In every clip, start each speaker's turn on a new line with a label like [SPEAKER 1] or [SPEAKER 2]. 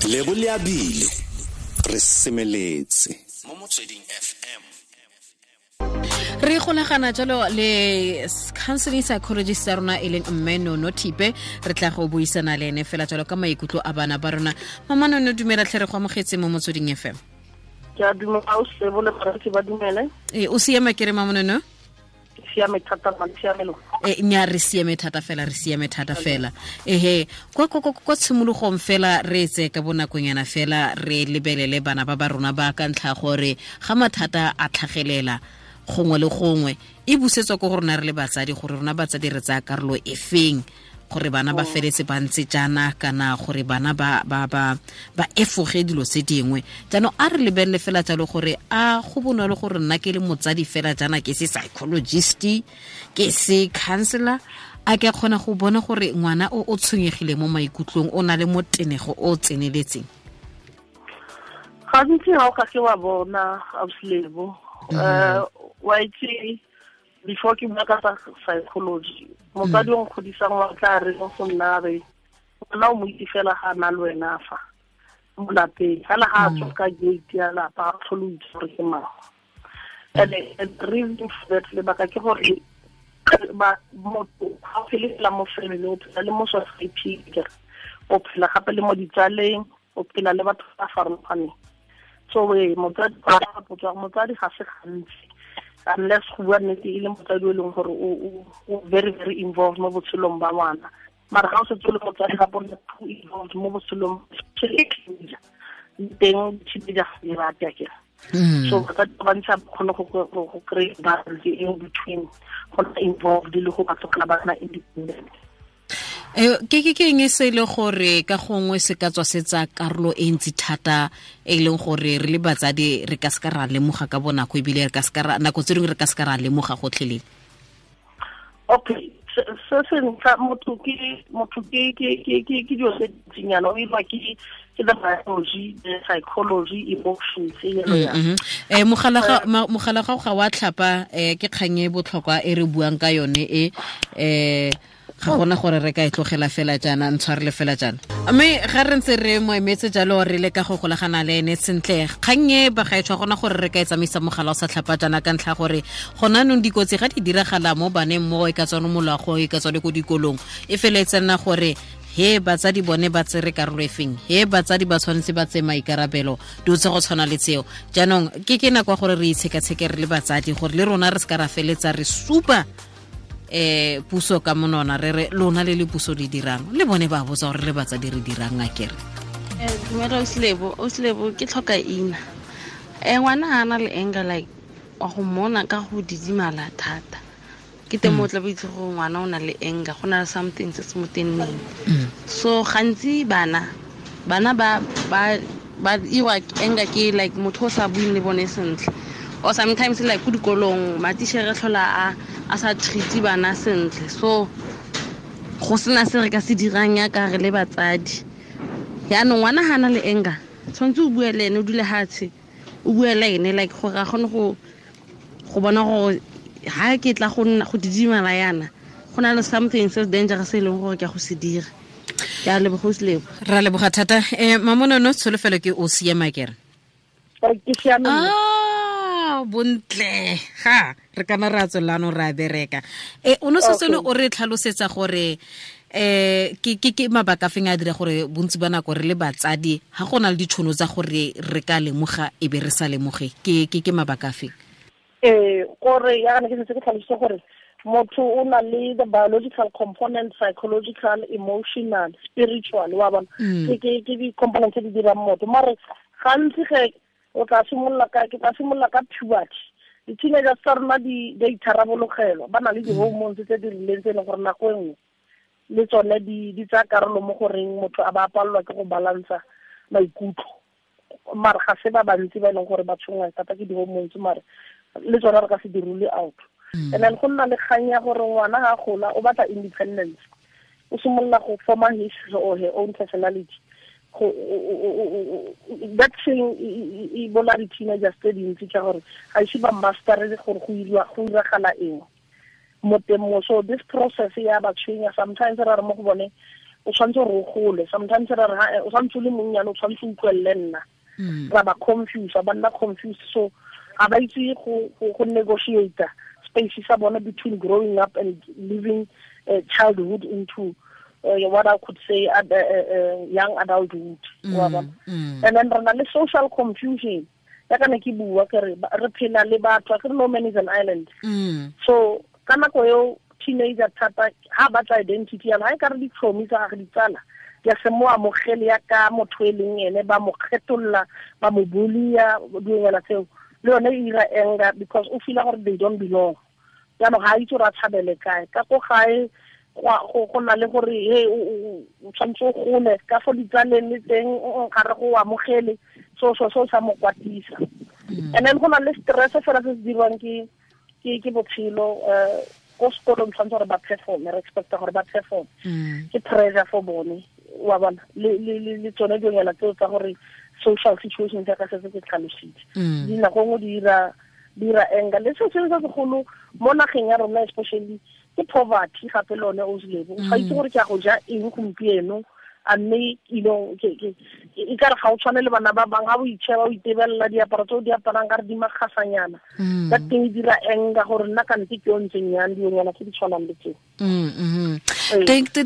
[SPEAKER 1] Lebo le abile re semeletse mo Motsweding FM.
[SPEAKER 2] Re golagana jalo le counseling psychologist ya rona e leng mme Nono Thipe. Re tla go buisana le ene fela jalo ka maikutlo a bana ba rona. Mama Nono, dumela tlhe, re go amogetse mo Motsweding FM.
[SPEAKER 3] Ke a dumela o sebo le baretsi ba dumele.
[SPEAKER 2] E o siame ke re, mama Nono?
[SPEAKER 3] Siame thata, ma siamelo.
[SPEAKER 2] E nya re siame thata fela, re siame thata fela. Ehe, kwa tshimologong fela re tse ka bonakonyana fela re lebelele bana ba ba rona ba ka ntlha gore ga mathata a tlhagelela gongwe le gongwe e busetswa ko go rona re le batsadi, gore rona batsadi re tsaya karolo e feng gore bana ba feletse ba ntse jaana kana gore bana ba efoge dilo tse dingwe. Jaanong a re lebelele fela jalo gore a go bonolo gore nna ke le motsadi fela jaana, ke se psychologist, ke se counselor, a ke kgona go bona gore ngwana o o tshwenyegile mo maikutlong, o na le motenego o o tseneletseng?
[SPEAKER 3] Gantsi ga o ka ke wa bona, ausilebo, wa itse, before ke bua ka tsa psychology, motsadi o nkgodisang wa tla re mo go nna, re ngwana o mo itse fela ga a na le wena fa mo lapeng fela, ga a tswa ka gate ya lapa a tlhole o itse gore ke mang. And the reason for that, lebaka ke gore ba motho ga o phele fela mo family, o phela le mo society, o phela gape le mo ditsaleng, o phela le batho ba farologaneng. So e motsadi, motsadi ga se gantsi, unless go bua nnete e le motsadi o e leng gore o very very involved mo botshelong ba ngwana. Mara ga o setse o le motsadi gape o nna too involved mo botshelong, especially teenager teng, teenager ga di rate akere. So batsadi ba bantsi ba kgone go kry balance in between go nna involved le go ba tlogela ba nna independent.
[SPEAKER 2] Ke eng e se e le gore ka gongwe se ka tswa se tsa karolo e ntsi thata e leng gore re le batsadi re ka se ka ra lemoga ka bonako, ebile re ka se ka ra nako tse dingwe re ka se ka ra lemoga gotlhelele?
[SPEAKER 3] Okay, se se ntlha, motho ke dilo tse dintsinyana, o irwa ke the biology, the psychology, emotions, yalo yalo.
[SPEAKER 2] Mogala ga wa tlhapa. Ke kgang e botlhokwa e re buang ka yone e ga gona gore re ka e tlogela fela jaana, ntshwarele fela jaana. Mme ga re ntse re mo emetse jalo, re le ka go golagana le ene sentle, kgang e bagaetsho gona gore re ka e tsamaisa mogala o sa tlhapa jaana, ka ntlha gore gona anong dikotsi ga di diragala mo baneng, mo e ka tswane mo loago, e ka tswane ko dikolong, e feletse nna gore he batsadi bone ba tsere karolo e feng, he batsadi ba tshwanetse ba tseye maikarabelo, dilo tse go tshwana le tseo. Jaanong ke nako ya gore re itshekatsheke re le batsadi, gore le rona re se ka ra feletsa re supa puso ka monona, re re lona le le puso le dirang, le bone ba botsa gore le batsadi re dirang akere.
[SPEAKER 4] Dumela Oslebo, Oslebo, ke tlhoka ina. Ngwana ga ana le anger, like wa go mmona ka go didimala thata. Ke teng mo o tla bo itse gore ngwana o na le anger, go na le something se se mo tenneng. So gantsi bana ba irwa anger ke like motho o sa buing le bone sentle. Or sometimes like ko dikolong matichere tlhola a sa treat bana sentle. So go sena se re ka se dirang ya ka re le batsadi. Yaanong ngwana ga ana le anger, tshwanetse o bue le ene, o dule hatshe, o bue le ene, like gore a kgone go bona gore ha ke tla go nna go didimala yana, go na le something se dangerous e leng gore ke a go se dira. Ke a leboga, Oslebo.
[SPEAKER 2] Ra leboga thata. Mamonono, tsholofelo ke o siama kere?
[SPEAKER 3] Ke siame.
[SPEAKER 2] Ah, bontle ga re kana ra tswelano ra bereka. O no setse o re tlhalosetsa gore ke mabaka feng a dira gore bontsi ba nako re le batsadi ga go na le ditšhono tsa gore re ka lemoga e be re sa lemoge, ke mabaka feng?
[SPEAKER 3] Gore ya ne ke setse ke tlhalositse gore motho o na le the biological component, psychological, emotional, spiritual, wa bona, ke di-component tse di dirang motho. Mare gantsi ge o tla simolola ka, ke tla simolola ka puberty, di-teenagers tsa rona di a itharabologelwa, ba na le di-hormones tse di rileng tse e leng gore nako e nngwe le tsone di tsaya karolo mo goreng motho a ba palelwa ke go balansa maikutlo. Mare ga se ba bantsi ba e leng gore ba tshwenngwa thata ke di-hormones, mare le tsone re ka se di rule out. And then go nna le kgang ya gore ngwana ga a gola o batla independence, o simolola go forma his or her own personality. That thing e bola di-teenagers tse dintsi ka gore ga ise ba mastere gore go iragala eng mo teng mo. So this process ya ba tshwenya sometimes. Ra re mo go bone O tshwanetse gore o gole. Sometimes re re o tshwanetse o le monnyane, o tshwanetse o utlwelele nna. Ra ba confuse, ba nna confused, so ga ba itse go negotiate space sa bona between growing up and living childhood into what I could say young adulthood. And then re na le social confusion. Ya ka ne ke bua ke re re phela le batho, ke re no man is an island. So ka nako eo teenager thata ha batla identity ya ha e ka re ditlhomi tsa gagwe ditsala di a se mo amogele ya ka motho e leng ene, ba mo kgetholla, ba mo bulia, dilonyana tseo. Le yone e ira anger because o feel gore they don't belong. Jaanong ga a itse gore a tshabele kae. Ka ko gae go na le gore he o tshwanetse o gole ka fo ditsaleng le teng ga re go amogele, so sa mo kwatisa. And then go na le stress fela se se dirwang ke botshelo. Ko sekolong tshwanetse gore ba perform, re expecta gore ba perform. Ke pressure for bone, wa bona, le tsone dilonyana tseo tsa gore social situations ya ka setse ke tlhalositse. Dinako nngwe di dira anger. Le se sengwe se segolo mo nageng ya rona especially ke poverty gape le one o selebo. O sa itse gore ke a go ja eng gompieno, a mme e ka re ga o tshwane le bana ba bangwe, ga o itšheba o itebelela diaparo tse o di aparang ka re di makgasanyana. Ka teng e dira anger gore nna kante ke yo ntseng yang, dilonyana tse di tshwanang le tseo.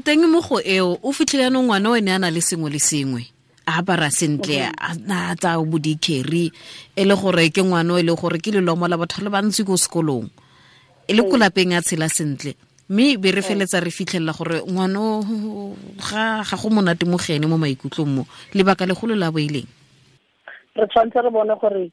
[SPEAKER 2] Teng mo go eo o fitlhele yanong ngwana o ene a na le sengwe le sengwe, a apara sentle, a tsaya bo di-carry, e le gore ke ngwana o e le gore ke lelomo la batho le bantsi ko sekolong, e le ko lapeng a tshela sentle, mme be re feletsa re fitlhelela gore ngwana ga go monate mo go ene mo maikutlong mo. Lebaka legolo la bo e leng?
[SPEAKER 3] Re tshwanetse re bone gore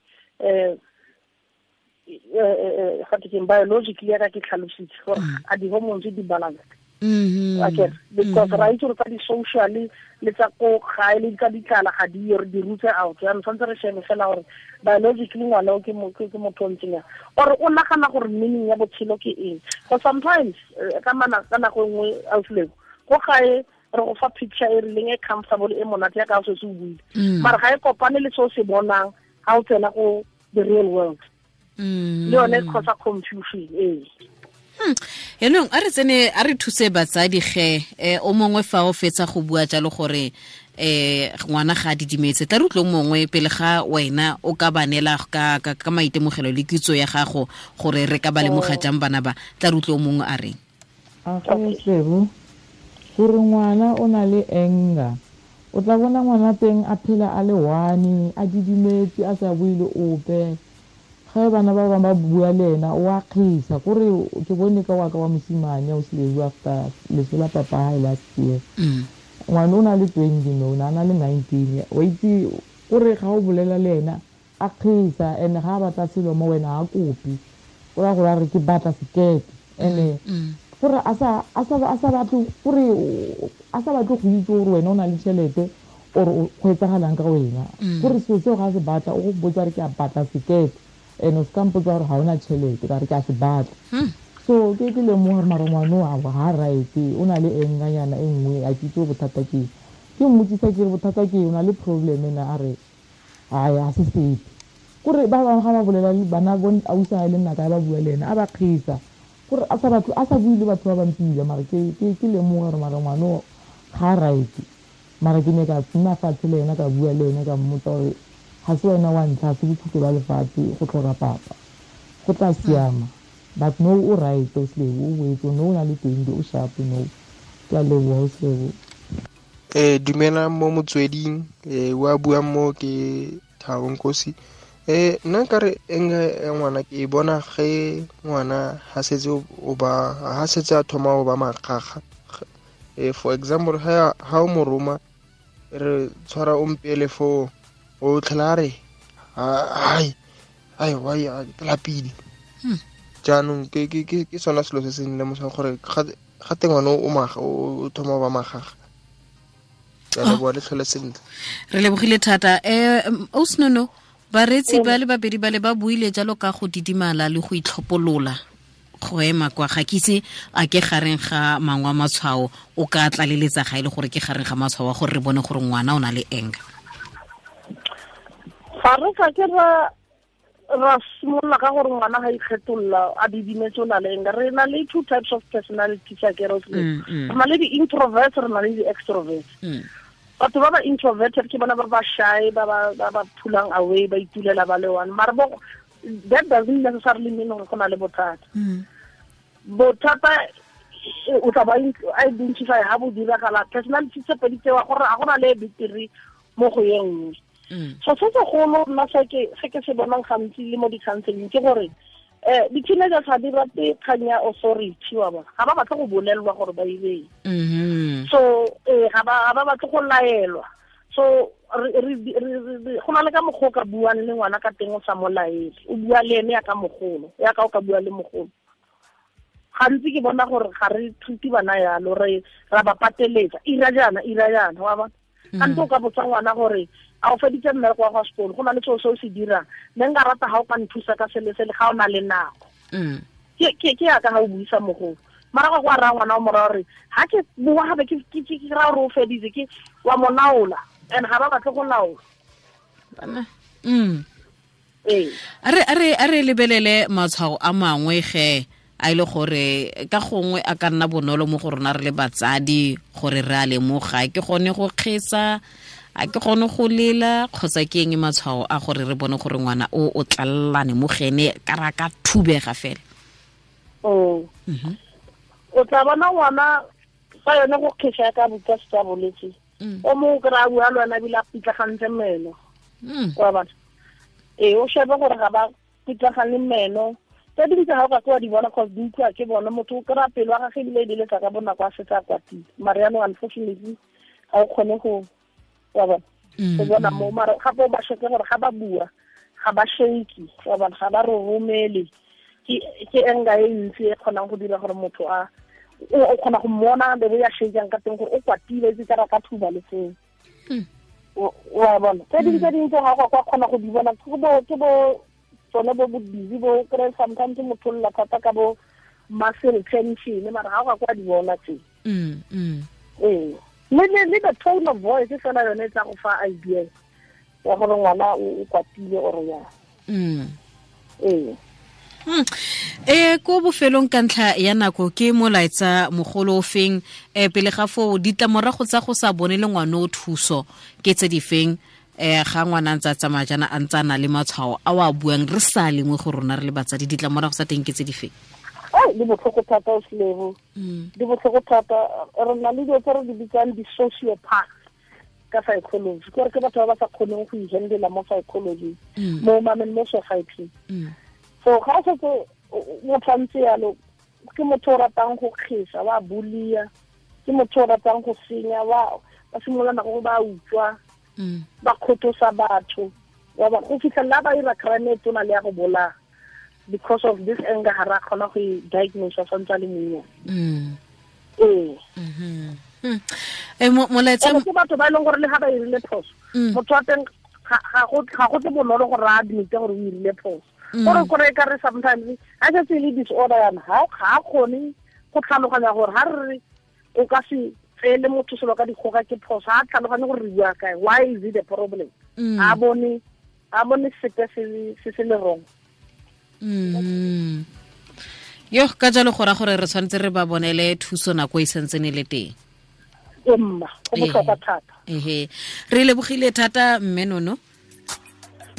[SPEAKER 3] ga ke biologically ya ka ke tlhalositse gore a di-hormones di balanced. Okay, because ra itse gore tsa di-social le tsa ko gae le tsa ditlala ga di yo, re di rutse out. Jaanong tshwanetse re shebe fela gore biologically ngwana o ke motho o ntseng yang, or o nagana gore meaning ya botshelo ke eng. Because sometimes ka nako e nngwe ausileko ko gae re go fa picture e rileng e comfortable e monate ya ka o setse o buile, mara ga e kopane le se o se bonang ga o tsena go the real world. Le yone e causa confusion ee.
[SPEAKER 2] Yaanong a re tsene a re thuse batsadi ge o mongwe fa o fetsa go bua jalo gore ngwana ga a didimetse, tla re utlwe mongwe pele ga wena o ka ba neela ka maitemogelo le kitso ya gago gore re ka ba lemoga jang bana ba, tla re utlwe o mongwe a reng.
[SPEAKER 5] A go gore ngwana o na le anger, o tla bona ngwana teng a phela a le one, a didimetse, a sa bue le ope. Ge bana ba bangwe ba bua le ena o a kgisa, kore ke bone ka wa ka wa mosimane o seleu after leso la papa hae last year. Ngwana o na le 20 no, o na le 19, wa itse kore ga o bolela le ena a kgisa, and ga a batla selo mo wena a kopi, o ra gore a re ke batla sekete, and gore a sa batle gore a sa batle go itse gore wena o na le tšhelete or go etsagalang ka wena, gore selo seo ga se batla o go botsa re ke a batla sekete, and o se ka mpotsa gore ga ona tšhelete ka re ke a se batla. So ke lemoga gore mara ngwana o ga right, o na le enganyana e nngwe, a ke itse bothata ke eng. Ke mmotsisa ke re bothata ke eng, o na le problem ena, a re ai a se sepe. Kore ba bangwe ga ba bolela le bana bo ausi a le nna ka ba bua le ena a ba kgisa, gore a sa batho a sa bue le batho ba bang mara ke lemoga gore mara ngwana o ga right. Mara ke ne ka nna fatshe le ena ka bua le ena ka mmotsa gore ga se wena wa ntlha, se bokhutlo ba lefatshe go tlhoka papa, go tla siama. But no o right o selebo, o boetse no o na le 20, o sharp no. Ke a leboha o selebo.
[SPEAKER 6] Dumelang mo motsweding, wa buang mo ke Thabo Nkosi. Nna nkare anger ya ngwana ke e bona ge ngwana ha setse o ba ha setse a thoma go ba makgakga. For example, ha o mo roma re tshwara o mpele fo o tlhela re ai ai wa ya lapile. Jaanong ke sona selo se se nlemosang gore ga teng ngwana o maga o thoma go ba makgakga. Ke a leboha le tlhole sentle.
[SPEAKER 2] Re lebogile thata. Osnono, bareetsi ba le babedi ba le ba buile jalo ka go didimala le go itlhopolola go ema kwa, ga ke itse a ke gareng ga mangwe a matshwao o ka tlaleletsa ga e le gore ke gareng ga matshwao a gore re bone gore ngwana o na le anger.
[SPEAKER 3] Ga re ka ke ra Ra simolola ka gore ngwana ga ikgetolla a didimetse o na le anger. Re na le two types of personality tsa ke re na le di-introverts, re na le di-extroverts. Batho ba ba introverted ke bona ba ba shy, ba ba pullang away, ba itulela ba le one. Mara bo that doesn't necessarily mean gore go na le bothata. Bothata o tla ba identify ha bo diragala personality tse pedi tsewa gore a gona le bitiri mo go ye nngwe. So se segolo nna se ke se bonang gantsi le mo di-counseling ke gore di-teenagers ga di rate kgang ya authority wa bona, ga ba batle go bolelelwa gore ba ireng. So ga ba batle go laelwa. So go na le ka mokgwa o ka buang le ngwana ka teng o sa mo laele, o bua le ene yaka mogolo, yaka o ka bua le mogolo. Gantsi ke bona gore ga re treat bana yalo, re ra ba pateletsa ira jaana ira jaana wa bona. Gantsi o ka botsa ngwana gore a o feditse mmereko wa go sekolo, go na le seo se o se dirang, ne nka rata ga o ka nthusa ka sele sele ga o na le nako. Ke yaka ga o buisa mogolo. Mara go raya ngwana o mo raya gore ga ke bua gape ke raya gore o feditse, ke wa mo laola, and ga ba batle go laola.
[SPEAKER 2] A re lebelele matshwao a mangwe ge a ile gore ka gongwe a ka nna bonolo mo go rona re le batsadi gore re a lemoga, ke gone go kgesa, a ke gone go lela, kgotsa ke eng matshwao a gore re bone gore ngwana o o tlalelane mo gene ka ra ka thubega fela?
[SPEAKER 3] O tla bona ngwana fa yone go kgesa ka botsa se boletse, o mongwe kry-a bua le wena ebile a pitlagantse meno. Wa bona? Ee, o shebe gore ga ba pitlagane meno. Tse dingwe tse ga o ka ke wa di bona cause di utlwa ke bona, motho o kry-a pelo wa gage ebile e beletsa ka bonako a setse a kwatile. Mara jaanong unfortunately ga o kgone go wa bona go bona mo. Mara gape o ba sheke gore ga ba bua ga ba shake, wa bona, ga ba roromele. Ke anger e ntsi e kgonang go dira gore motho a o kgona go mmona be ya shakang ka teng gore o kwatile, itse ka ka thuba le seo. Wa bona? Tse dingwe tse ga go kgona go di bona ke bo tsone bo bo busy bo kry sometimes motho lla thata ka bo muscle tension, mara ga go kwa di bona tse. Ee, le the tone of voice fela yone e tla go fa idea ya gore ngwana o kwatile or ya. Ee.
[SPEAKER 2] Ko bofelong ka ntlha ya nako ke molaetsa mogolo o feng pele ga foo ditlamorago tsa go sa bone le ngwana o thuso ke tse di feng ga ngwana ntse a tsamaya jaana a ntse a na le matshwao a o a buang re sa lengwe go rona re le batsadi, ditlamorago tsa teng ke tse di feng?
[SPEAKER 3] Di botlhoko thata o Selebo, di botlhoko thata. Re na le dilo tse re di bitsang di-sociopath ka psychology, ke gore ke batho ba ba sa kgoneng go ihandela mo psychology, mo mameng mo society. So ga o setse motho a ntse yalo, ke motho o ratang go kgesa, wa bulia, ke motho o ratang go senya, ba simolola nako ba utswa, ba kgothosa batho, go fitlhelela ba ira crime e tona le ya go bolaya because of this anger ga ra kgona go e diagnose santse a le monnye. Ee.
[SPEAKER 2] Molaetsa
[SPEAKER 3] ke batho ba e leng gore le ga ba irile phoso, motho wa teng ga go tle bonolo gore a admite gore o irile phoso. Gore e ka re sometimes ga setse e le disorder yana, ga a kgone go tlhaloganya gore ga re re o ka se tseele motho selo ka dikgoka ke phoso, ga a tlhaloganye gore re bua kae, why is it a problem? A bone sepe se se le wrong.
[SPEAKER 2] Yo ka jalo go ra gore re tshwanetse re ba bonele thuso nako e santsene le teng.
[SPEAKER 3] Emma, go botlhokwa thata.
[SPEAKER 2] Re lebogile thata mme Nono.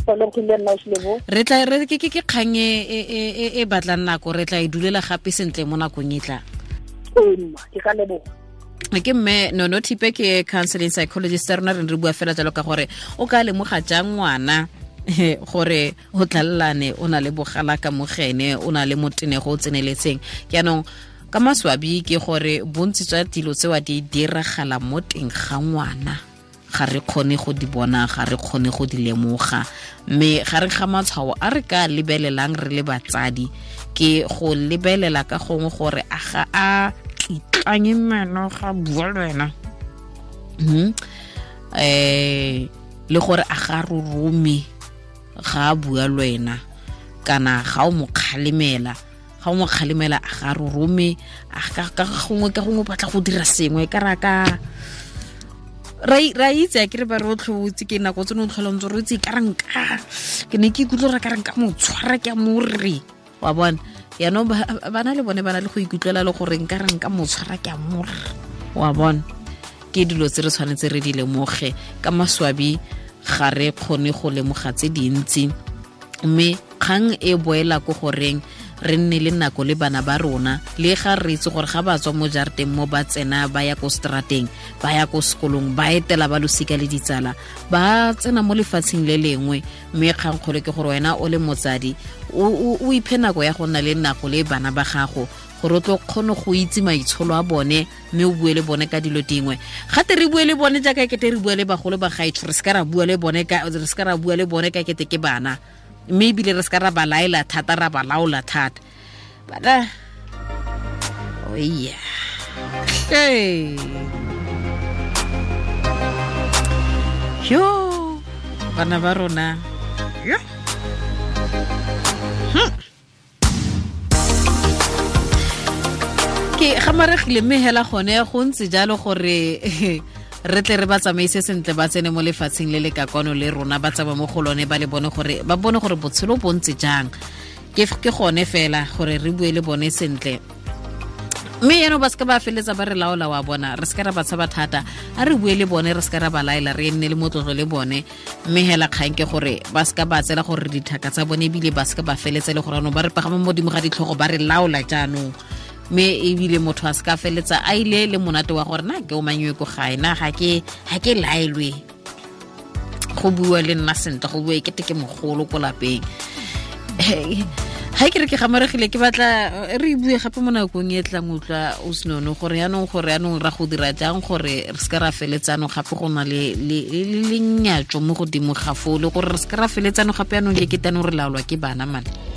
[SPEAKER 2] Re tla re ke kgang e batlang nako, re tla e dulela gape sentle mo nakong e tlang.
[SPEAKER 3] Emma, ke ka leboga.
[SPEAKER 2] Ke mme Nono Thipe, ke counseling psychologist rona, re bua fela jalo ka gore o ka lemoga jang ngwana gore o tlalelane, o na le bogala ka mogene, o na le motenego o tseneletseng. Jaanong ka maswabi ke gore bontsi jwa dilo tsewa di diragala mo teng ga ngwana, ga re kgone go di bona, ga re kgone go di lemoga. Mme ga re ga matshwao a re ka lebelelang re le batsadi ke go lebelela ka gongwe gore a ga a kitlanye meno ga bua le wena, le gore a ga rorome ga a bua le wena, kana ga o mo kgalemela, ga o mo kgalemela a ga rorome, a ka gongwe batla go dira sengwe ka ra ka Ra itse a ke re ba re o tlhobotse ke nako tse ne o tlhola ntse re itse ka ranka ke ne ke ikutlwa re ka ranka mo tshwara ke a more wa bona yaanong bana le bone ba na le go ikutlwela le gore nka ranka mo tshwara ke a more wa bona. Ke dilo tse re tshwanetse re di lemoge ka maswabi ga re kgone go lemoga tse dintsi, mme kgang e boela ko goreng re nne le nako le bana ba rona, le ga re itse gore ga ba tswa mo jarateng mo ba tsena ba ya ko strateng, ba ya ko sekolong, ba etela ba losika le ditsala, ba tsena mo lefatsheng le lengwe. Mme kgangkgolo ke gore wena o le motsadi o iphe nako ya go nna le nako le bana ba gago gore o tlo kgone go itse maitsholo a bone, mme o bue le bone ka dilo dingwe. Gate re bue le bone jaaka kete re bua le bagolo ba gaetsho, re se ka ra bua le bone ka re se ka ra bua le bone ka kete ke bana, mme ebile re se ka ra ba laela thata, ra ba laola thata. Bana oya hey yo bana ba rona yo ke gamaregile mme hela gone go ntse jalo gore re tle re ba tsamaise sentle, ba tsene mo lefatsheng le le ka kwano le rona, ba tsaba mo go lone, ba le bone gore ba bone gore botshelo bo ntse jang. Ke gone fela gore re bue le bone sentle, mme eno ba se ka ba feletsa ba re laola wa bona, re se ka ra ba tshaba thata, a re bue le bone, re se ka ra ba laela, re nne le motlotlo le bone. Mme hela kgang ke gore ba se ka ba tsela gore dithaka tsa bone, ebile ba se ka ba feletsa le gore anong ba re pagama mo godimo ga ditlhogo ba re laola jaanong. Mme ebile motho a se ka feletsa a ile le monate wa gore na ke o manywe ko gae, na ga ke laelwe go bua le nna sentle, go bua ekete ke mogolo ko lapeng. Ga ke re ke gamaregile, ke batla re bue gape mo nakong e tlang utlwa o senono gore yaanong ra go dira jang gore re se ka ra feletsano gape go na le lenyatso mo godimo ga foo, le gore re se ka ra feletsano gape yaanong ke ketanong re laolwa ke bana mane.